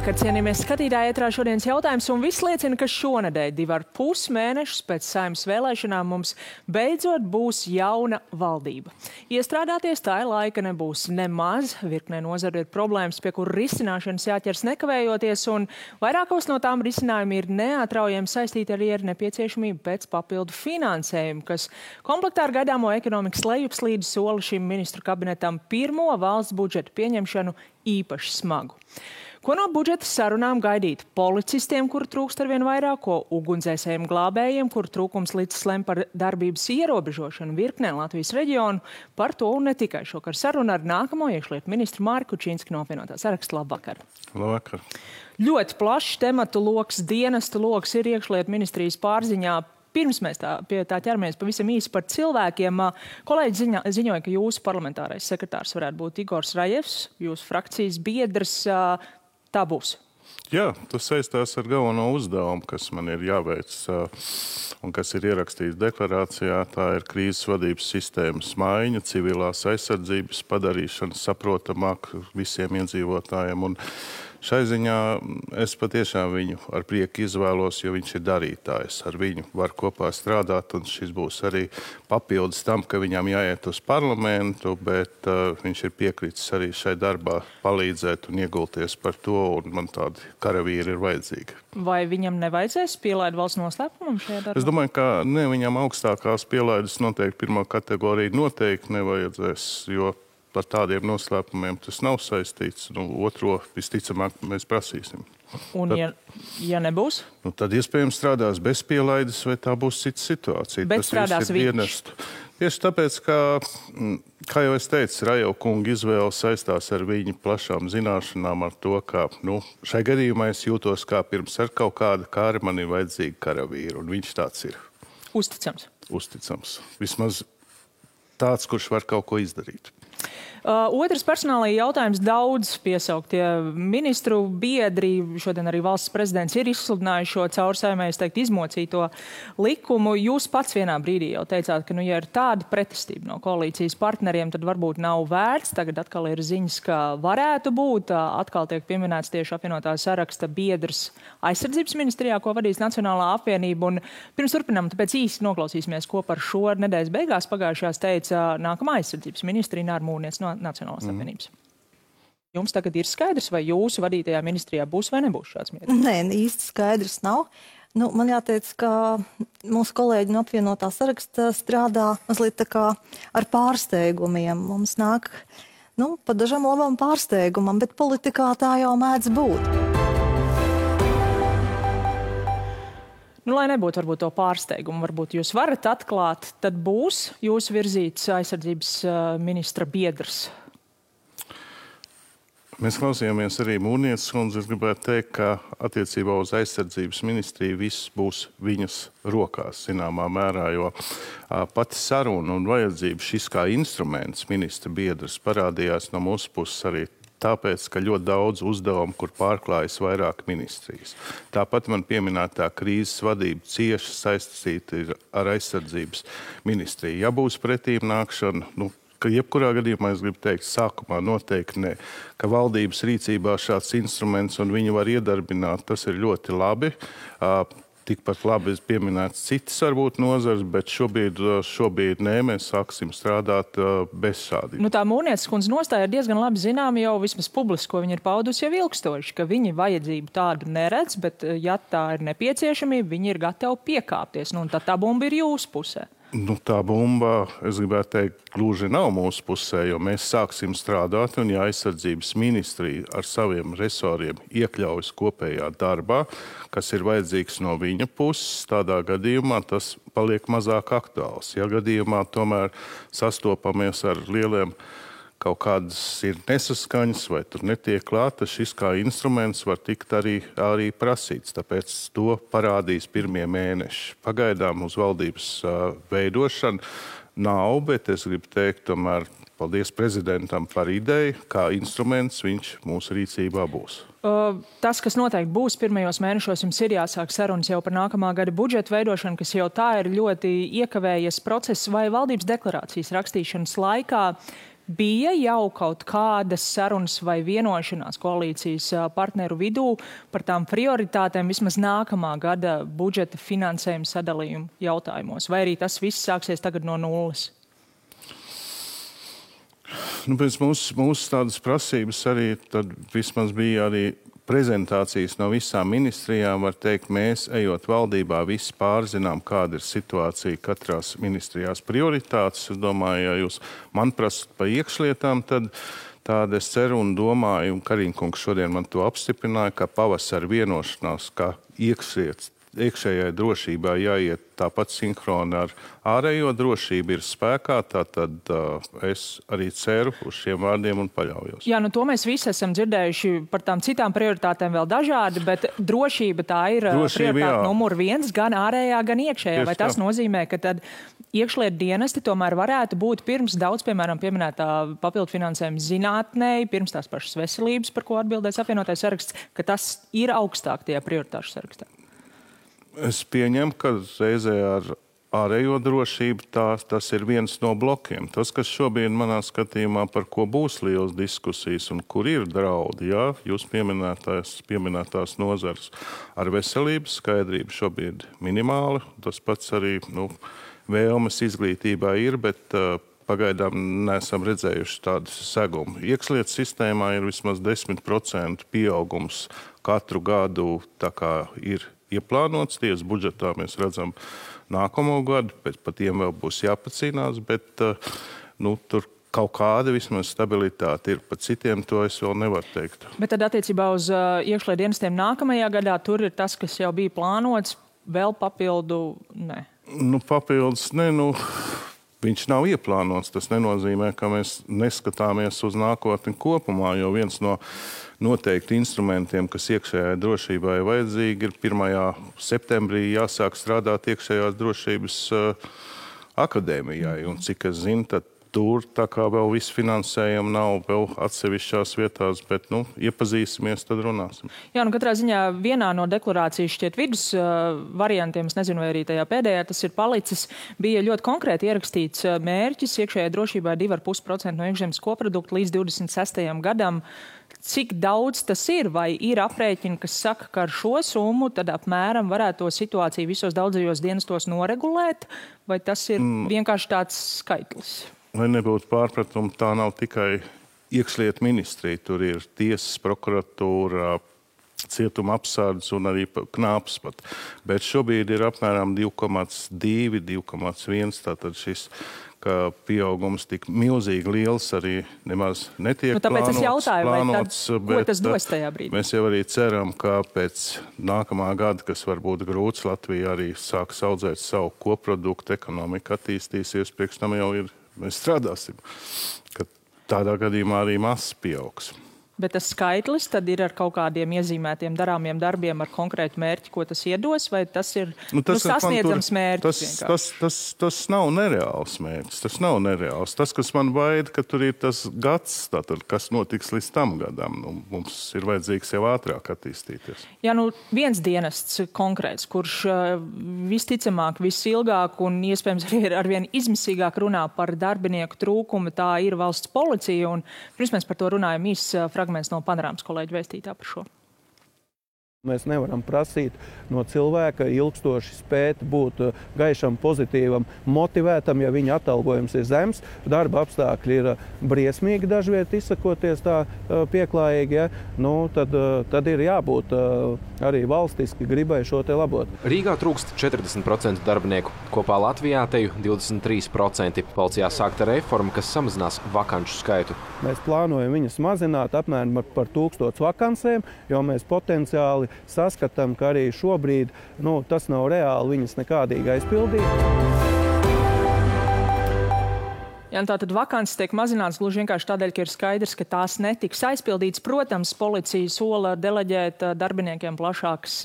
Labvakar, cienījamies skatītāji, ētrā šodienas jautājums, un viss liecina, ka šonedēļ 2,5 mēnešus pēc Saeimas vēlēšanām mums beidzot būs jauna valdība. Iestrādāties tā laika nebūs nemaz, virknē nozaru ir problēmas, pie kuru risināšanas jāķers nekavējoties, un vairākos no tām risinājumi ir neatraujami saistīti arī ar nepieciešamību pēc papildu finansējumu, kas komplektā ar gaidāmo ekonomikas lejupslīdes sola šim ministru kabinetam pirmo valsts budžeta pieņemšanu īpaši smagu. Ko no budžeta sarunām gaidīt policistiem, kuru trūkst arvien vairāk, ko ugunsdzēsējiem glābējiem, kuru trūkums līdz lem par darbības ierobežošanu virknē Latvijas reģionu, par to un ne tikai šokar sarunu ar nākamo iekšlietu ministru Māri Kučinski no apvienotā saraksta. Labvakar. Labvakar. Ļoti plašs tematu loks, dienestu loks ir iekšlietu ministrijas pārziņā. Pirms mēs pie tā ķeramies pavisam īsi par cilvēkiem. Kolēģi ziņoja, ka jūsu parlamentārais sekretārs varētu būt Igors Rajevs, jūsu frakcijas biedrs. Tā būs. Jā, tas saistās ar galveno uzdevumu, kas man ir jāveic un kas ir ierakstīts deklarācijā. Tā ir krīzes vadības sistēmas maiņa, civilās aizsardzības padarīšana saprotamāk visiem iedzīvotājiem. Un šai ziņā es patiešām viņu ar prieku izvēlos, jo viņš ir darītājs. Ar viņu var kopā strādāt, un šis būs arī papildus tam, ka viņam jāiet uz parlamentu, bet viņš ir piekritis arī šai darbā palīdzēt un iegulties par to, un man tādi karavīri ir vajadzīgi. Vai viņam nevajadzēs pielaid valsts noslēpumam šajā darbā? Es domāju, ka ne, viņam augstākās pielaides noteikti pirmā kategorija noteikti nevajadzēs, jo par tādiem noslēpumiem tas nav saistīts. Otro visticamāk mēs prasīsim. Un ja nebūs? Tad iespējams strādās bez pielaides, vai tā būs cita situācija. Bet strādās viņš? Tieši tāpēc, kā jau es teicu, Rajeva kunga izvēle saistās ar viņa plašām zināšanām, ar to, ka šai gadījumā es jūtos kā pirms ar kaut kāda kāra man ir vajadzīga karavīra, un viņš tāds ir. Uzticams. Uzticams. Vismaz tāds, kurš var kaut ko izdarīt. Otrs personālajā jautājums daudz piesauktie ministru biedri. Šodien arī valsts prezidents ir izsludinājuši šo caur Saeimai, es teiktu, izmocīto likumu. Jūs pats vienā brīdī jau teicāt, ka, ja ir tāda pretestība no koalīcijas partneriem, tad varbūt nav vērts. Tagad atkal ir ziņas, ka varētu būt. Atkal tiek pieminēts tieši apvienotā saraksta biedrs aizsardzības ministrijā, ko vadīs Nacionālā apvienība. Un pirms turpinām, tāpēc īsti noklausīsimies, ko par šo nedēļas beigās pagājušajās teica nākamā aizsardzības ministri Ināra Mūrniece no Nacionālās apvienības. Jums tagad ir skaidrs, vai jūsu vadītajā ministrijā būs vai nebūs šāds mierīgs? Nē, īsti skaidrs nav. Man jāteic, ka mūsu kolēģi no apvienotā saraksta strādā mazliet tā kā ar pārsteigumiem. Mums nāk, pa dažam labam pārsteigumam, bet politikā tā jau mēdz būt. Lai nebūtu varbūt to pārsteigumu, varbūt jūs varat atklāt, tad būs jūsu virzīts aizsardzības ministra biedrs. Mēs klausījāmies arī Mūrnieces kundzi. Es gribētu teikt, ka attiecībā uz aizsardzības ministriju viss būs viņas rokās, zināmā mērā, jo pati saruna un vajadzība šis kā instruments ministra biedrs parādījās no mūsu puses arī tāpēc, ka ļoti daudz uzdevumu, kur pārklājas vairāk ministrijas. Tāpat man pieminētā krīzes vadība cieši saistīta ar aizsardzības ministriju. Ja būs pretīm nākšana, ka jebkurā gadījumā es gribu teikt, sākumā noteikti ne, ka valdības rīcībā šāds instruments un viņu var iedarbināt, tas ir ļoti labi. Tikpat labi pieminēts citas varbūt nozars, bet šobrīd nē, mēs sāksim strādāt bez šādiem. Tā Mūrnieces kundze nostāja ir diezgan labi zināma jau vismaz publiski, ko viņa ir paudusi jau ilgstoši, ka viņi vajadzību tādu neredz, bet ja tā ir nepieciešamība, viņi ir gatavi piekāpties. Tad tā bumba ir jūsu pusē. Tā bumba, es gribētu teikt, gluži nav mūsu pusē, jo mēs sāksim strādāt, un ja aizsardzības ministrija ar saviem resoriem iekļaujas kopējā darbā, kas ir vajadzīgs no viņa puses, tādā gadījumā tas paliek mazāk aktuāls. Ja gadījumā tomēr sastopamies ar lieliem kaut kādas ir nesaskaņas vai tur netiek klāta, šis kā instruments var tikt arī prasīts. Tāpēc to parādīs pirmie mēneši. Pagaidām uz valdības veidošanu nav, bet es gribu teikt, tomēr paldies prezidentam par ideju, kā instruments viņš mūsu rīcībā būs. Tas, kas noteikti būs pirmajos mēnešos, jums ir jāsāk sarunas jau par nākamā gada budžeta veidošanu, kas jau tā ir ļoti iekavējies process vai valdības deklarācijas rakstīšanas laikā. bija jau kaut kādas sarunas vai vienošanās koalīcijas partneru vidū par tām prioritātēm vismaz nākamā gada budžeta finansējuma sadalījuma jautājumos? Vai arī tas viss sāksies tagad no nulles? Pēc mūsu tādas prasības arī tad vismaz bija arī prezentācijas no visām ministrijām. Var teikt, mēs, ejot valdībā, visi pārzinām, kāda ir situācija katrās ministrijās prioritātes. Es domāju, ja jūs man prasat par iekšlietām, tad tāda es ceru un domāju, un Kariņkungs šodien man to apstiprināja, ka pavasara vienošanās, ka iekšējai drošībā jāiet tāpat sinhroni ar ārējo drošību ir spēkā, tātad es arī ceru uz šiem vārdiem un paļaujos. Jā, to mēs visi esam dzirdējuši par tām citām prioritātēm vēl dažādi, bet drošība tā ir prioritāte numur 1, gan ārējā, gan iekšējā. Vai tas nozīmē, ka tad iekšlietu dienesti tomēr varētu būt pirms daudz, piemēram, pieminētā papildu finansējuma zinātnei, pirms tās pašas veselības, par ko atbildēs apvienotais saraksts, ka tas ir augstāk tajā prioritāšu sarakstā? Es pieņemu, ka reizē ar ārējo drošību tas ir viens no blokiem. Tas, kas šobrīd manā skatījumā, par ko būs liels diskusijas un kur ir draudi, jā, jūs pieminētās nozars ar veselības skaidrību šobrīd minimāli. Tas pats arī vēlmes izglītībā ir, bet pagaidām neesam redzējuši tādu segumu. Iekšlietu sistēmā ir vismaz 10% pieaugums katru gadu, tā kā ir ieplānots. Tiesas budžetā mēs redzam nākamo gadu, par tiem vēl būs jāpacīnās, bet tur kaut kāda vismaz stabilitāte ir. Par citiem to es vēl nevaru teikt. Bet tad attiecībā uz iekšlietu dienestiem nākamajā gadā tur ir tas, kas jau bija plānots, vēl papildu, ne? Papildus, ne, viņš nav ieplānots. Tas nenozīmē, ka mēs neskatāmies uz nākotni kopumā, jo viens no noteikti instrumentiem, kas iekšējai drošībai vajadzīgi, ir 1. septembrī jāsāk strādāt iekšējās drošības akadēmijai. Un cik es zinu, tad tur tā kā vēl viss finansējumi nav vēl atsevišķās vietās, bet iepazīsimies, tad runāsim. Jā, katrā ziņā vienā no deklarācijas šķiet vidus variantiem, es nezinu, vai arī tajā pēdējā tas ir palicis, bija ļoti konkrēti ierakstīts mērķis iekšējai drošībai 2,5% no iekšzemes koprodukta līdz 26. gadam. Cik daudz tas ir, vai ir aprēķini, kas saka, ka ar šo summu tad apmēram varētu to situāciju visos daudzajos dienestos noregulēt, vai tas ir vienkārši tāds skaitlis? Lai nebūtu pārpratumi, tā nav tikai iekšlietu ministrija. Tur ir tiesas, prokuratūra, cietuma apsardz un arī knāps pat. Bet šobrīd ir apmēram 2,2, 2,1, tātad šis ka pieaugums tik milzīgi liels arī nemaz netiek tāpēc plānots. Es jautāju, plānots, ko tas dos tajā brīdī? Mēs jau arī ceram, ka pēc nākamā gada, kas var būt grūts, Latvija arī sāks audzēt savu koproduktu, ekonomika attīstīsies, priekš tam jau ir, mēs strādāsim, ka tādā gadījumā arī masas pieaugs. Bet tas skaitlis tad ir ar kaut kādiem iezīmētiem darāmiem darbiem ar konkrētu mērķi, ko tas iedos, vai tas ir sasniedzams mērķis? Tas nav nereāls mērķis. Tas nav nereāls. Tas, kas man baida, ka tur ir tas gads, tātad, kas notiks līdz tam gadam. Mums ir vajadzīgs jau ātrāk attīstīties. Jā, viens dienests konkrēts, kurš visticamāk, visilgāk un iespējams arī arvien izmisīgāk runā par darbinieku trūkumu, tā ir valsts policija. Un pirms mēs par to runājam fragments no Panorāmas kolēģa vēstītā par šo. Mēs nevaram prasīt no cilvēka ilgstoši spēt būt gaišam, pozitīvam, motivētam, ja viņa atalgojums ir zems, darba apstākļi ir briesmīgi dažviet izsakoties tā pieklājīgi, tad ir jābūt arī valstiski gribai šo te labot. Rīgā trūkst 40% darbinieku, kopā Latvijā teju 23%. Policijā sākta reforma, kas samazinās vakanšu skaitu. Mēs plānojam viņas mazināt apmēram par 1000 vakansēm, jo mēs potenciāli saskatām, ka arī šobrīd tas nav reāli viņas nekādīgi aizpildīt. Jā, tātad vakances tiek mazināts gluži vienkārši tādēļ, ka ir skaidrs, ka tās netiks aizpildītas. Protams, policija sola deleģēt darbiniekiem plašākas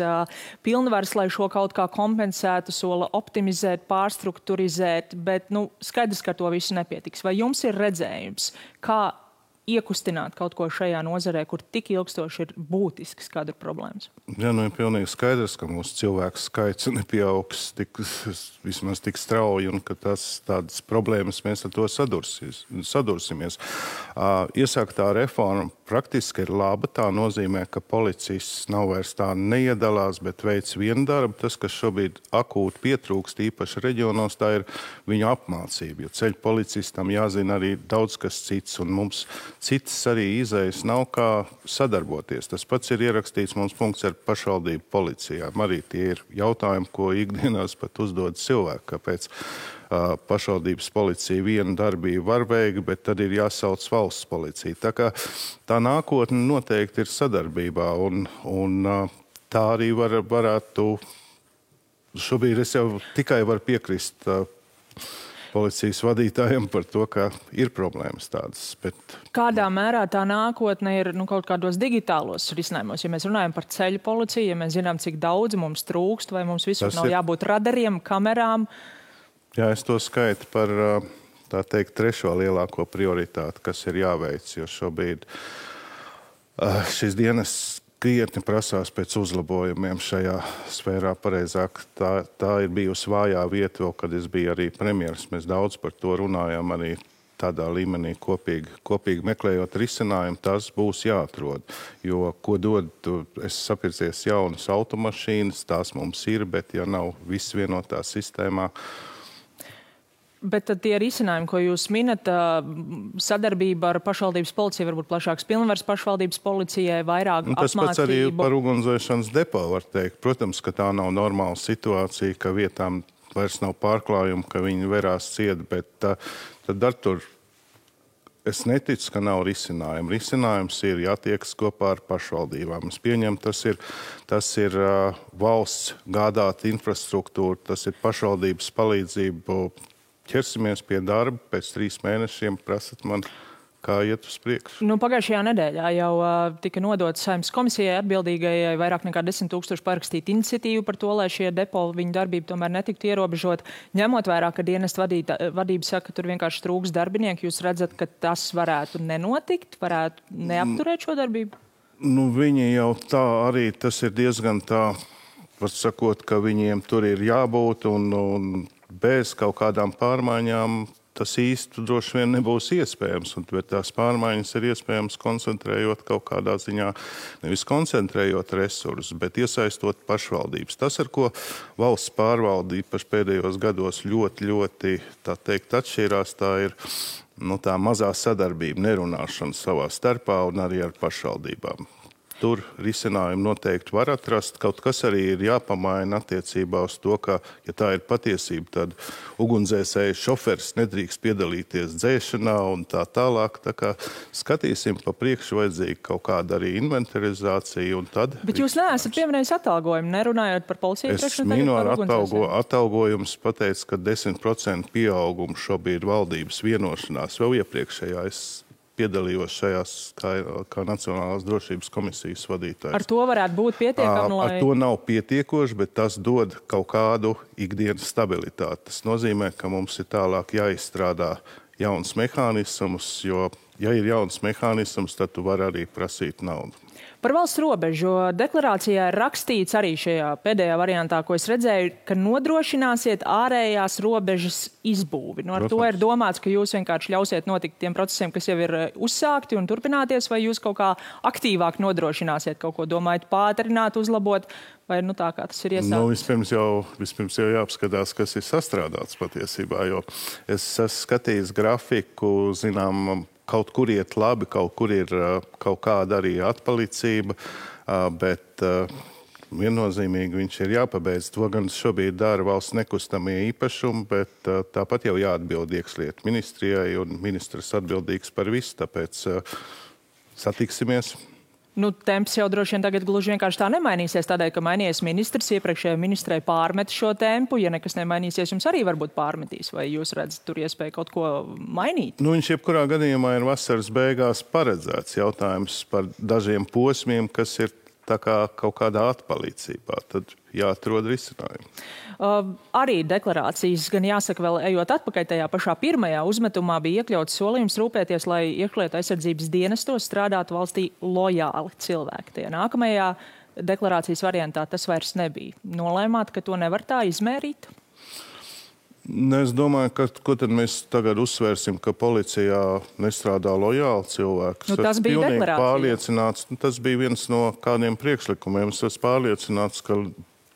pilnvaras, lai šo kaut kā kompensētu, sola optimizēt, pārstrukturizēt, bet skaidrs, ka to visu nepietiks. Vai jums ir redzējums, kā iekustināt kaut ko šajā nozarē, kur tik ilgstoši ir būtisks kāda problēmas? Jā, nu ir pilnīgi skaidrs, ka mūsu cilvēku skaits nepieaugs vismaz tik strauji un ka tādas problēmas mēs ar to sadursimies. Iesāktā reforma praktiski ir laba. Tā nozīmē, ka policists nav vairs tā neiedalās, bet veic vienu darbu. Tas, kas šobrīd akūti pietrūkst, īpaši reģionos, tā ir viņu apmācība. Jo ceļu policistam jāzina arī daudz kas cits, un mums citas arī izējas nav kā sadarboties. Tas pats ir ierakstīts mums punkts ar pašvaldību policijām. Arī tie ir jautājumi, ko ikdienās pat uzdod cilvēki, kāpēc pašvaldības policija vienu darbību var veikt, bet tad ir jāsauc valsts policija. Tā kā tā nākotne noteikti ir sadarbībā, un tā arī varētu. Šobrīd es jau tikai varu piekrist policijas vadītājiem par to, ka ir problēmas tādas. Bet kādā mērā tā nākotne ir kaut kādos digitālos risinājumos? Ja mēs runājam par ceļu policiju, ja mēs zinām, cik daudz mums trūkst, vai mums visur nav jābūt radariem, kamerām? Jā, es to skaitu par, tā teikt, trešo lielāko prioritāti, kas ir jāveic, jo šobrīd šis dienas krietni prasās pēc uzlabojumiem šajā sfērā. Pareizāk, tā ir bijusi vājā vieta, vēl, kad es biju arī premjeras. Mēs daudz par to runājām arī tādā līmenī kopīgi meklējot risinājumu. Tas būs jāatrod, jo, ko dod, es sapircies jaunas automašīnas, tās mums ir, bet ja nav viss vienotā sistēmā. Bet tad tie risinājumi, ko jūs minat, sadarbība ar pašvaldības policiju, varbūt plašāks pilnvars pašvaldības policijai, vairāk apmācību. Tas pats arī par ugunsdzēšanas depo var teikt. Protams, ka tā nav normāla situācija, ka vietām vairs nav pārklājumu, ka viņi verās ciet, bet tad ar tur es neticu, ka nav risinājumu. Risinājums ir jātiekas kopā ar pašvaldībām. Es pieņemu, tas ir valsts gādāta infrastruktūra, tas ir pašvaldības palīdzību. Ķersimies pie darba, pēc 3 mēnešiem prasat man, kā iet uz priekšu. Pagājušajā nedēļā jau tika nodots Saeimas komisijai atbildīgajai vairāk nekā 10 000 parakstīt iniciatīvu par to, lai šie depo viņu darbību tomēr netiktu ierobežot. Ņemot vērā, ka dienesta vadība saka, ka tur vienkārši trūks darbinieki, jūs redzat, ka tas varētu nenotikt, varētu neapturēt šo darbību? Viņi jau tā arī, tas ir diezgan tā, var sakot, ka viņiem tur ir jābūt un bez kaut kādām pārmaiņām tas īsti droši vien nebūs iespējams. Bet tās pārmaiņas ir iespējams koncentrējot kaut kādā ziņā, nevis koncentrējot resursus, bet iesaistot pašvaldības. Tas, ar ko valsts pārvalde īpaši pēdējos gados ļoti, tā teikt, atšķirās, tā ir tā mazā sadarbība, nerunāšana savā starpā un arī ar pašvaldībām. Tur risinājumu noteikti var atrast. Kaut kas arī ir jāpamaina attiecībā uz to, ka, ja tā ir patiesība, tad ugunsdzēsēju šoferis nedrīkst piedalīties dzēšanā un tā tālāk. Tā kā skatīsim pa priekšu vajadzīga kaut kāda arī inventarizācija un tad... Bet jūs neesat pieminējis atalgojumu, nerunājot par policiju? Es minu ar atalgojumus pateicu, ka 10% pieaugumu šobrīd valdības vienošanās vēl iepriekšējā. Es piedalījos šajās kā Nacionālās drošības komisijas vadītājs. Ar to varētu būt pietiekami, lai... Ar to nav pietiekoši, bet tas dod kaut kādu ikdienas stabilitāti. Tas nozīmē, ka mums ir tālāk jāizstrādā jauns mehānisms, jo, ja ir jauns mehānisms, tad tu vari arī prasīt naudu. Par valsts robežu deklarācijā ir rakstīts arī šajā pēdējā variantā, ko es redzēju, ka nodrošināsiet ārējās robežas izbūvi. Ar to ir domāts, ka jūs vienkārši ļausiet notikt tiem procesiem, kas jau ir uzsākti un turpināties, vai jūs kaut kā aktīvāk nodrošināsiet kaut ko, domājat pātrināt, uzlabot, vai tā kā tas ir iesākts? Vispirms jau jāapskatās, kas ir sastrādāts patiesībā, jo es esmu skatījis grafiku, zinām, kaut kur iet labi, kaut kur ir kaut kāda arī atpalicība, bet viennozīmīgi viņš ir jāpabeidz. To gan šobrīd dara valsts nekustamie īpašumi, bet tāpat jau jāatbild iekšlietu ministrijai un ministrs atbildīgs par visu, tāpēc satiksimies. Temps jau droši vien tagad gluži vienkārši tā nemainīsies, tādēļ, ka mainījies ministrs, iepriekšējai ministrei pārmet šo tempu. Ja nekas nemainīsies, jums arī varbūt pārmetīs, vai jūs redzat tur iespēju kaut ko mainīt? Viņš jebkurā gadījumā ir vasaras beigās paredzēts. Jautājums par dažiem posmiem, kas ir tā kā kaut kādā atpalīdzībā, tad jāatrod risinājumi. Arī deklarācijas, gan jāsaka, vēl ejot atpakaļ tajā pašā pirmajā uzmetumā, bija iekļauts solījums rūpēties, lai iekšlietu aizsardzības dienestos strādātu valstī lojāli cilvēki. Tajā nākamajā deklarācijas variantā tas vairs nebija. Nolēmāt, ka to nevar tā izmērīt? Es domāju, ka ko tad mēs tagad uzsvērsim, ka policijā nestrādā lojāli cilvēki. Tas bija deklarācija. Tas bija viens no kādiem priekšlikumiem. Es esmu pārliecināts, ka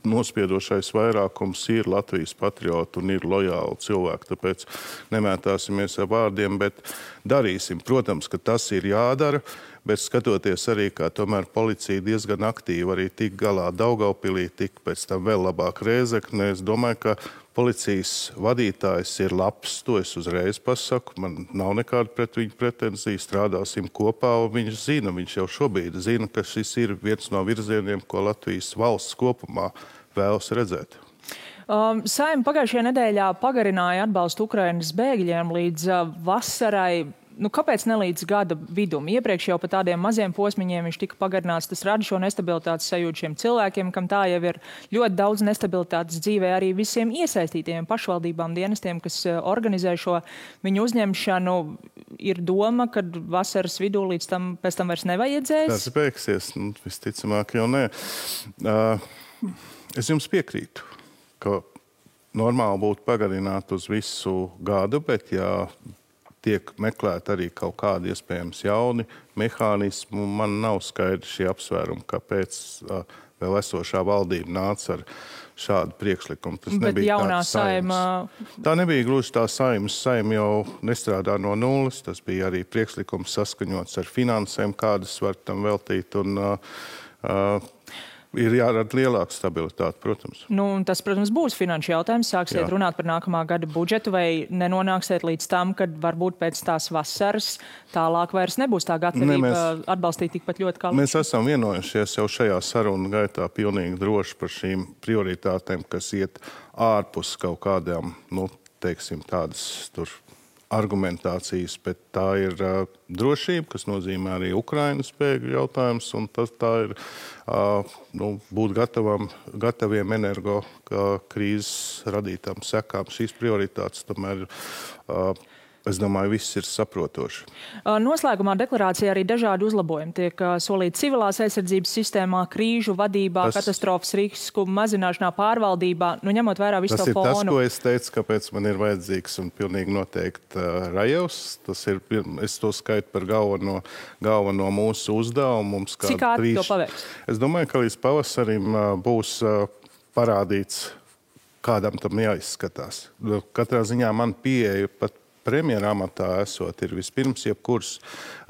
nospiedošais vairākums ir Latvijas patrioti un ir lojāli cilvēki. Tāpēc nemētāsimies ar vārdiem, bet darīsim. Protams, ka tas ir jādara, bet skatoties arī, kā tomēr policija diezgan aktīvi arī tik galā Daugavpilī, tik pēc tam vēl labāk Rēzeknē. Es domāju, ka policijas vadītājs ir labs, to es uzreiz pasaku. Man nav nekāda pret viņu pretenzija, strādāsim kopā, un viņš jau šobrīd zina, ka šis ir viens no virzieniem, ko Latvijas valsts kopumā vēlas redzēt. Saeima pagājušajā nedēļā pagarināja atbalstu Ukrainas bēgļiem līdz vasarai. Kāpēc ne līdz gada vidum? Iepriekš jau pa tādiem maziem posmiņiem viņš tika pagarināts. Tas rada šo nestabilitātes sajūtu šiem cilvēkiem, kam tā jau ir ļoti daudz nestabilitātes dzīvē, arī visiem iesaistītiem pašvaldībām, dienestiem, kas organizē šo viņu uzņemšanu. Ir doma, ka vasaras vidū līdz tam pēc tam vairs nevajadzēs? Tas beigsies, visticamāk jau nē. Es jums piekrītu, ka normāli būtu pagarināt uz visu gadu, bet tiek meklēt arī kaut kādi iespējams jauni mehānismi. Man nav skaidrs šie apsvērumi, kāpēc vēl esošā valdība nāca ar šādu priekšlikumu. Tas bet jaunā saima... Tā nebija gluži tā saimas. Saima jau nestrādā no nulles. Tas bija arī priekšlikums saskaņots ar finansēm, kādas var tam veltīt. Un ir jārada lielāka stabilitāte, protams. Tas, protams, būs finanšu jautājums. Sāksiet runāt par nākamā gada budžetu, vai nenonāksiet līdz tam, kad varbūt pēc tās vasaras tālāk vairs nebūs tā gatavība atbalstīt tikpat ļoti kā... Mēs esam vienojušies jau šajā sarunu gaitā pilnīgi droši par šīm prioritātēm, kas iet ārpus kaut kādām, teiksim, tādas tur argumentācijas, bet tā ir drošība, kas nozīmē arī Ukrainas bēgļu jautājums, un tā ir būt gataviem energo krīzes radītām sekām. Šīs prioritātes tomēr, es domāju, viss ir saprotoši. Noslēgumā deklarācijā arī dažādi uzlabojumi tiek solīti civilās aizsardzības sistēmā, krīžu vadībā, katastrofas risku mazināšanā, pārvaldībā, ņemot vērā visu to fonu. Tas ir tas, ko es teicu, kāpēc man ir vajadzīgs un pilnīgi noteikti Rajevs. Es to skaitu par galveno mūsu uzdevumu. Cik ātri to paveiks? Es domāju, ka līdz pavasarim būs parādīts, kādam tam jāizskatās. Katrā ziņā man pieeja pat premjera amatā esot, ir vispirms jebkuras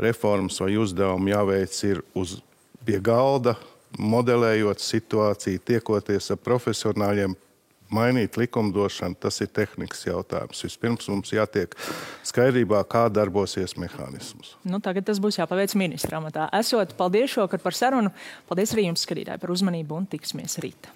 reformas vai uzdevumi jāveic ir pie galda, modelējot situāciju, tiekoties ar profesionāļiem, mainīt likumdošanu, tas ir tehnikas jautājums. Vispirms mums jātiek skaidrībā, kā darbosies mehānismus. Tagad tas būs jāpaveic ministra amatā. Paldies šokar par sarunu. Paldies arī jums, skatītāji, par uzmanību un tiksimies rīt.